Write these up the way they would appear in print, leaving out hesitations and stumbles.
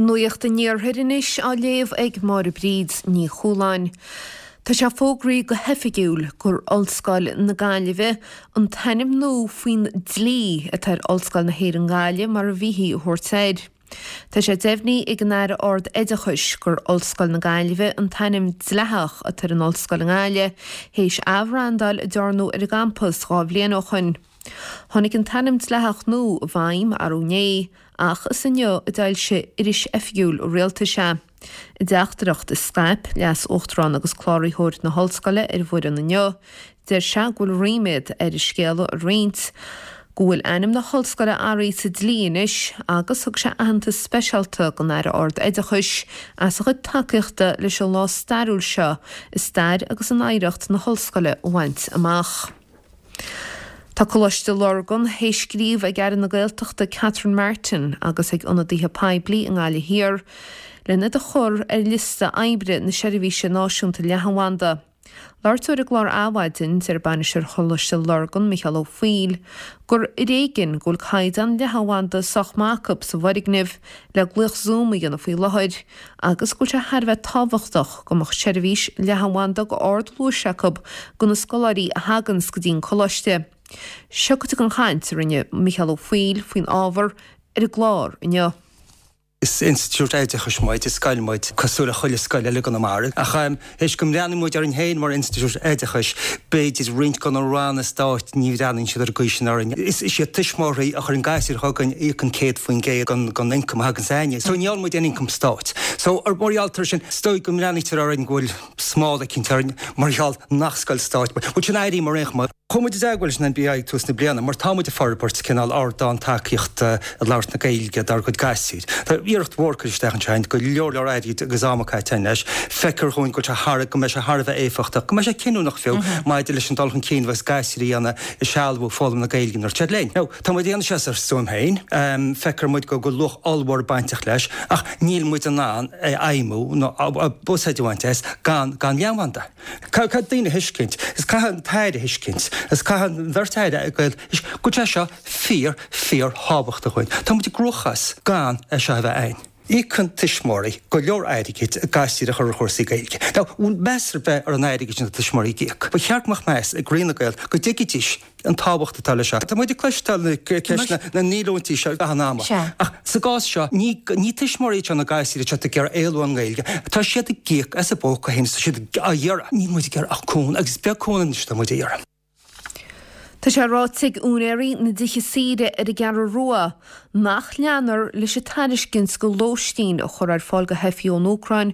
Nuacht an Iarthair anois á léamh ag Máire Bríd Ní Chualáin. Tá sé fógraithe go hoifigiúil gur Ollscoil na Gaillimhe an t-ainm nua faoin dlí atá ar Ollscoil na hÉireann Gaillimh mar a bhíthí a thabhairt air. Tá sé deimhnithe ag an Aire Ard-Oideachais gur Ollscoil na Gaillimhe an t-ainm dleathach atá ar an ollscoil i nGaillimh théis athbhrandáil a dearnadh ar an gcampas 2 bhliain ó shoin. Tháinig an t-ainm dleathach nua i bhfeidhm arú inné ach is inniu a d'fhoilsigh Iris Oifigiúil an Rialtais é. I dteachtaireacht a scaip Leas-Uachtarán agus Cláraitheoir na hOllscoile ar an bhfoireann inniu, deir sé go bhfuil ríméad air an scéala a roinnt go bhfuil ainm na hOllscoile athraithe sa dlí anois agus thug sé aitheantas speisialta don Aire Ard-Oideachais as a chuid tacaíochta leis an lá stairiúil seo i stair agus in oidhreacht na hOllscoile a bhaint amach. Tá Coláiste Lurgan théis scríobh ag Aire na Gaeltachta Catherine Martin agus ag ionadaithe poiblí i nGaillimh Thiar len iad a chur ar liosta oibre na Seirbhíse Náisiúnta Leathanbhanda. Labhairt dó ar an gclár Adhmhaidin, deir bainisteoir Choláiste Lurgan, Micheál Ó Foighil, gur ar éigean go bhfuil caighdeán leathanbhanda sách maith acu sa bhfoirgneamh le glaoch Zoom a dhéanamh faoi láthair agus go bhfuil sé thar a bheith tábhachtach go mbeadh seirbhís leathanbhanda go ardluais acu do na scoláirí a thaganns go dtí an coláiste. Seo cuid den chaint a rinne Micheál Ó Foighil faoin ábhar ar an gclár inniu. Is institiúid oideachais muid, is scoil muid, cosúil le chuile scoil eile i gConamara. Ach théis go mbreathnaíonn muid orainn féin mar institiúid oideachais, b'fhéidir roinnt de na ranna stáit, ní bhreathnaíonn siad ar an gcaoi sin orainn. Is iad tuismitheoirí a chuireann gasúir chugainn a íocann 100% den ioncam a thagann s'againne. So ní fhálann muid aon ioncam stáit. So mar gheall air sin, is dóigh go mbreathnaítear orainn go bhfuil smál eicínt orainn mar gheall nach scoil stáit muid. Bhuel sin airím ar aon chuma. Chuaigh muid i dteagmháil leis an NBI ag tús na bliana mar tá muid ag forbairt cineál ardán tacaíochta i labhairt na Gaeilge dár gcuid gasúir. Tá iarracht mhór curtha isteach anseo againn, go leor leor airgid agus ama caite againn leis. Feictear dhúinn go bhfuil sé thar, go mbeidh sé thar a bheith éifeachtach, go mbeidh sé cinniúnach fiú maidir leis an dul chun cinn a bheas gasúir a dhéanamh i sealbhú foghlaim na Gaeilge nuair atá siad linn. Now, tá muid ag déanamh seo as ár stuaim féin, feictear muid go bhfuil luach ollmhór bainteach leis ach níl muid in ann é a fheidhmiú nó úsáid a bhaint as gan gan leathanbhanda. Caithfidh daoine a thuiscint, is caithfidh an tAire a thuiscint, is caithfidh an bheirt Aire go bhfuil sé seo fíor, fíor thábhachtach dhúinn. Tá muid i gcruachás gan é seo a bheith againn. Íocann tuismitheoirí go leor airgid a gasúir a chur ar chúrsaí Gaeilge. Now, bhfuil meas ar bith ar an airgead sin atá tuismitheoirí ag íoc? Ba cheart go mbeadh meas ag Roinn na Gaeilge go dtuigfidís an tábhacht atá leis seo. Tá muid ag cloisteáil na ceisteanna na ndíolúintí seo gach an ama. Ach sa gcás seo, ní ní tuismitheoirí iad seo na gasúir atá ag iarraidh éalú ón nGaeilge. Tá siad ag íoc as a bpóca féin is tá siad á iarraidh. Níl muid ag iarraidh ach cúnamh agus is beag cúnamh anois atá muid a iarraidh. Tá sé ráite ag úinéirí na dtithe saoire ar an gCeathrú Rua nach leanfar leis an tairiscint go lóistín a chur ar fáil go theifigh ón Úcráin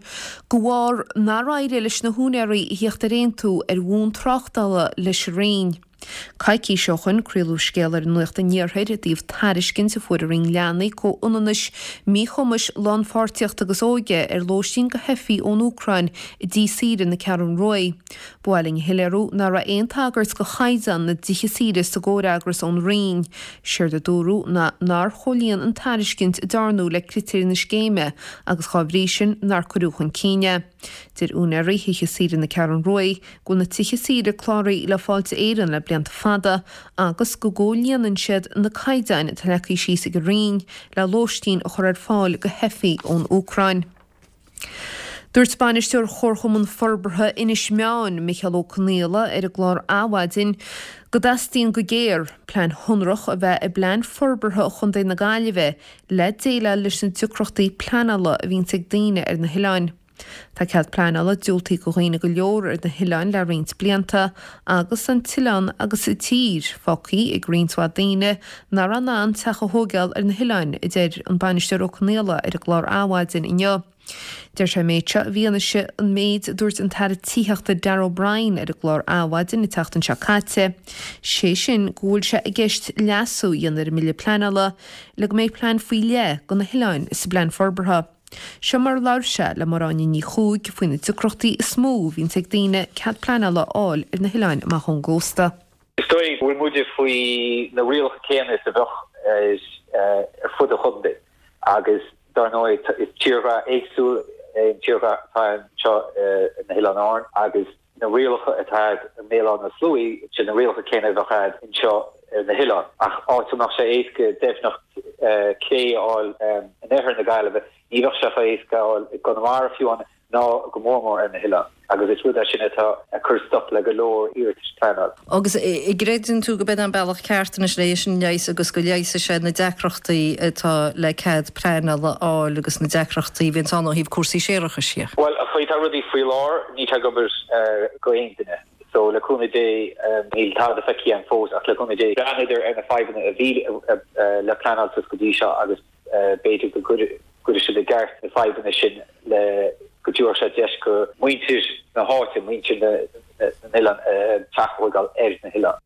de bharr nár éirigh leis na húinéirí a thíocht ar aontú ar bhonn tráchtála leis an Roinn. Coicís ó shoin craoladh scéal ar Nuacht an Iarthair i dtaobh tairiscint a fuair an Roinn Leanaí, Comhionannais, Míchumais, Lánpháirtíochta agus Óige ar lóistín go theifigh ón Úcráin i dtí saoire na Ceathrún Ruaidh. Ba mhaith linn a shoiléiriú nach raibh aon tagairt go chaighdeán na dtithe saoire sa gcomhfhreagras ón Roinn. Séard a dúradh ná nár chomhlíon an tairiscint a dearnadh le critéir na scéime agus dhá bhrí sin nár cuireadh chun cinn é. Deir úinéirí thithe saoire na Ceathrún Ruaidh go bhfuil na tithe saoire cláraithe le Fáilte Éireann le blianta fada agus go gcomhlíonann siad na caighdeáin atá leagtha síos ag an Roinn le lóistín a chur ar fáil go theifigh ón Úcráin. Dúirt Bainisteoir Chomharchumann Forbartha Inis Meáin, Micheál Ó Conaola, ar an gclár Adhmhaidin go dteastaíonn go géar plean shonrach a bheith i bPlean Forbartha Chontae na Gaillimhe le déileáil leis na deacrachtaí pleanála a bhíonns ag daoine ar na hoileáin. Tá cead pleanála diúltaithe go dhaoine go leor ar na hoileáin le roinnt blianta agus an t-oileán agus an tír fágtha ag roinnt mhaith daoine nach raibh in ann teach a thóigeáil ar na hoileáin, a deir an Bainisteoir Ó Conaola ar an gclár Adhmhaidin inniu. Deir sé an méid seo i bhfianaise an méid a dúirt an tAire Tithíochta Darragh O'Brien ar an gclár Adhmhaidin an tseachtain seo caite, sé sin go bhfuil sé i gceist leasú a dhéanamh ar an mBille Pleanála le go mbeidh plean faoi leith do na hoileáin sa bPlean Forbartha. Seo mar a labhair sé le Máire Áine Ní Chuaig faoi na deacrachtaí is mó a bhíonns ag daoine cead pleanála a fháil ar na hoileáin amach ón gcósta. Is dóigh go bhfuil muide faoi na rialacha céanna is a bheadh ar fud an chontae agus dar ndóigh is tírdhreach éagsúil é an tírdhreach atá anseo ar na hOileáin Árann agus na rialacha atá i mBéal Átha na Sluaighe, sin na rialacha céanna a bheadh a'd anseo ar na hoileáin. Ach áit a mbeadh sé éasca deimhneacht cé a fháil in oirthear na Gaillimhe. Ní bheadh sé chomh héasca a fháil i gConamara fiú amháin ná go mór mór ar na hoileáin agus is rud é sin atá ag cur stop le go leor iarratais pleanála. Agus an gcreideann tú go b'in an bealach ceart anois le é sin a leigheas agus go leigheasfaidh sé na deacrachtaí atá le cead pleanála a fháil agus na deacrachtaí a bhíonns ann ó thaobh cúrsaí séarachais dhe? Bhuel, an chaoi atá rudaí faoi láthair, níl sé ag obair go aon duine. So, le cúnamh Dé, níl tada feicthe agam fós ach le cúnamh Dé, breathnaíodar ar na fadhbanna a bhí le pleanáil suas go dtí seo agus b'fhéidir go gcuirfidh siad i gceart na fadhbanna sin le go dtabharfadh sé deis go muintir na háite, muintir na n-oileán teach a thógáil ar na hoileáin.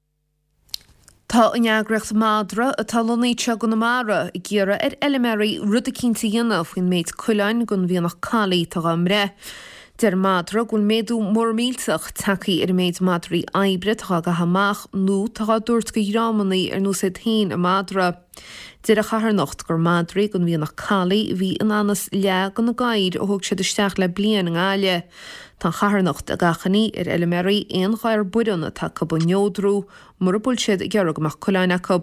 Tá an eagraíocht Madra, atá lonnaithe anseo i gConamara, ag iarraidh ar fheilméaraí rud eicínt a dhéanamh faoin méid coileáin den mhianach collie atá dhá mbreith. Deir Madra go bhfuil méadú mór millteach tagtha ar an méid madraí oibre atá dhá gcaitheamh amach nó atá dhá dtabhairt go dhreamannaí ar nós iad féin i Madra. Deir an charthanacht gur madraí den mhianach collie a bhí in anas leath de na gadhair a thóg siad isteach le bliain i nGaillimh. Tá an charthanacht ag achainí ar fheilméaraí aon ghadhar baireann atá acu a neodrú mura bhfuil siad ag iarraidh go mbeadh coileáin acu.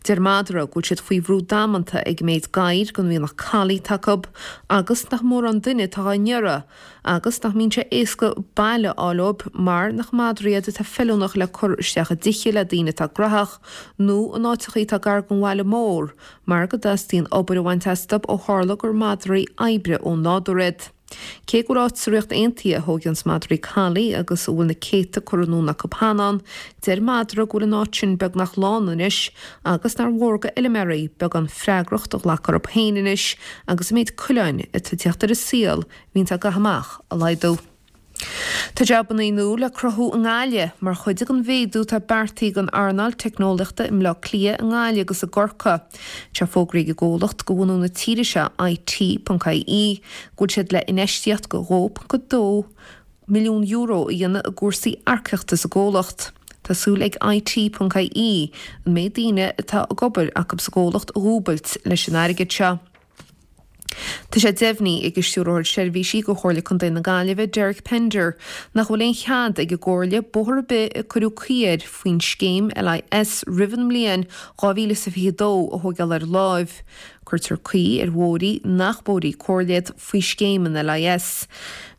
Deir Madra go bhfuil siad faoi bhrú damanta ag an méid gadhair den mhianach collie atá acu agus nach mórán duine atá dhá n-iarraidh agus nach mbíonn sé éasca baile a fháil dóibh mar nach madraí iad atá feiliúnach le cur isteach i dtithe le daoine atá graitheach nó in áiteachaí atá gar don bhaile mór mar go dteastaíonn obair a bhaint astu ó tharla gur madraí oibre ó nádúr iad. Cé go bhfuil áit sa Ríocht Aontaithe a thóigeanns madraí collie agus a bhfuil na céadta curtha anonn acu cheana ann, deir Madra go bhfuil an áit sin beagnach lán anois agus nár mhór go fheilméaraí beagán freagracht a ghlacadh orthu féin anois agus an méid coileáin atá ag teacht ar an saol a bhíonns á gcaitheamh amach a laghdú. Tá jabannaí nua le cruthú i nGaillimh mar chuid den mhéadú atá beartaithe don earnáil teicneolaíochta i mBleá Cliath, i nGaillimh agus i gCorcaigh. Tá fógraithe ag an gcomhlacht de bhunú na tíre seo, IT.ie, go bhfuil siad le infheistíocht de €2.2 milliún a dhéanamh i gcúrsaí earcaíochta sa gcomhlacht. Tá súil ag IT.ie an méid daoine atá ag obair acu sa gcomhlacht a dhúbailt leis an airgead seo. Tá sé deimhnithe ag an Stiúrthóir Seirbhísí do Chomhairle Contae na Gaillimhe, Derek Pender, nach bhfuil aon chead ag an gComhairle bóthar ar bith a cuireadh caoi air faoin scéim LIS roimh an mbliain 2022 a thóigeáil ar láimh. Cuirtear caoi ar bhóithrí nach bóithrí comhairle iad faoi scéim an LIS.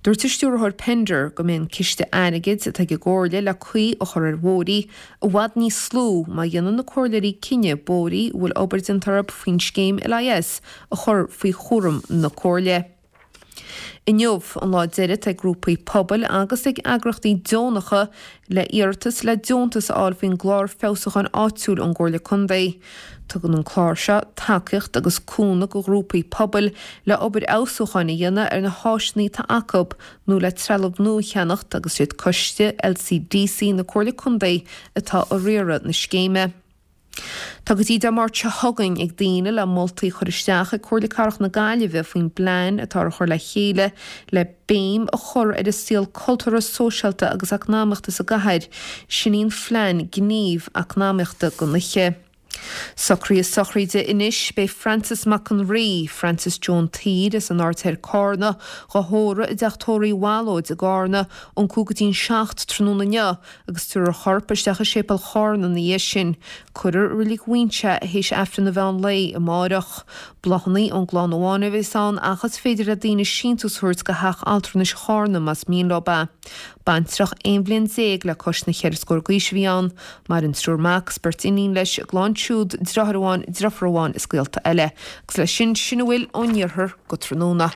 Dúirt an Stiúrthóir Pender go mbeidh an ciste airgid atá ag an gComhairle le caoi a chur ar bhóithrí i bhfad níos lú má dhéanann na comhairleoirí cinneadh bóithrí a bhfuil obair déanta orthu faoin scéim LIS a chur faoi chúram na Comhairle. Inniu an lá deiridh atá ag grúpaí pobail agus ag eagraíochtaí deonacha le iarratas le deontas a fháil faoin gClár Feabhsúcháin Áitiúil ón gComhairle Contae. Tugann an clár seo tacaíocht agus cúnamh go ghrúpaí pobail le obair fheabhsúcháin a dhéanamh ar na háiseanna atá acu nó le trealamh nua a cheannacht agus is iad Coiste LCDC na Comhairle Contae atá ag riaradh na scéime. Tá go dtí Dé Máirt seo chugainn ag daoine le moltaí a chur isteach ag Comhairle Cathrach na Gaillimhe faoin bplean atá á chur le chéile le béim a chur ar an saol cultúrtha, sóisialta agus eacnamaíochta sa gcathair, sin í an phlean gníomh eacnamaíochta don oíche. Socruithe sochraide anois, beidh Francis Mac an Rí, Francis Joan tSaoir as an Aird Thoir Cárna, dhá thórramh i dTeach Tórraimh Uí Bhallóid i gCárna ón 6:55 tráthnóna inniu agus tabharfar a chorp isteach i Séipéal Chárna ina dhiaidh sin. Cuirfear i Reilig Mhuinseo é théis Aifreann an mheán lae amáireach. Bláthanna ón gclann amháin a bheas ann ach is féidir le daoine síntiús a thabhairt go Theach Altranais Chárna más mian leo é. Baintreach 11 bhliain le cois na cheithre scór d'aois a bhí ann. Maireann triúr mac is beirt iníon leis, a gclann siúd, deartháir amháin, deirfiúr amháin is gaolta eile. Agus leis sin, sin a bhfuil ón iarthar go tráthnóna.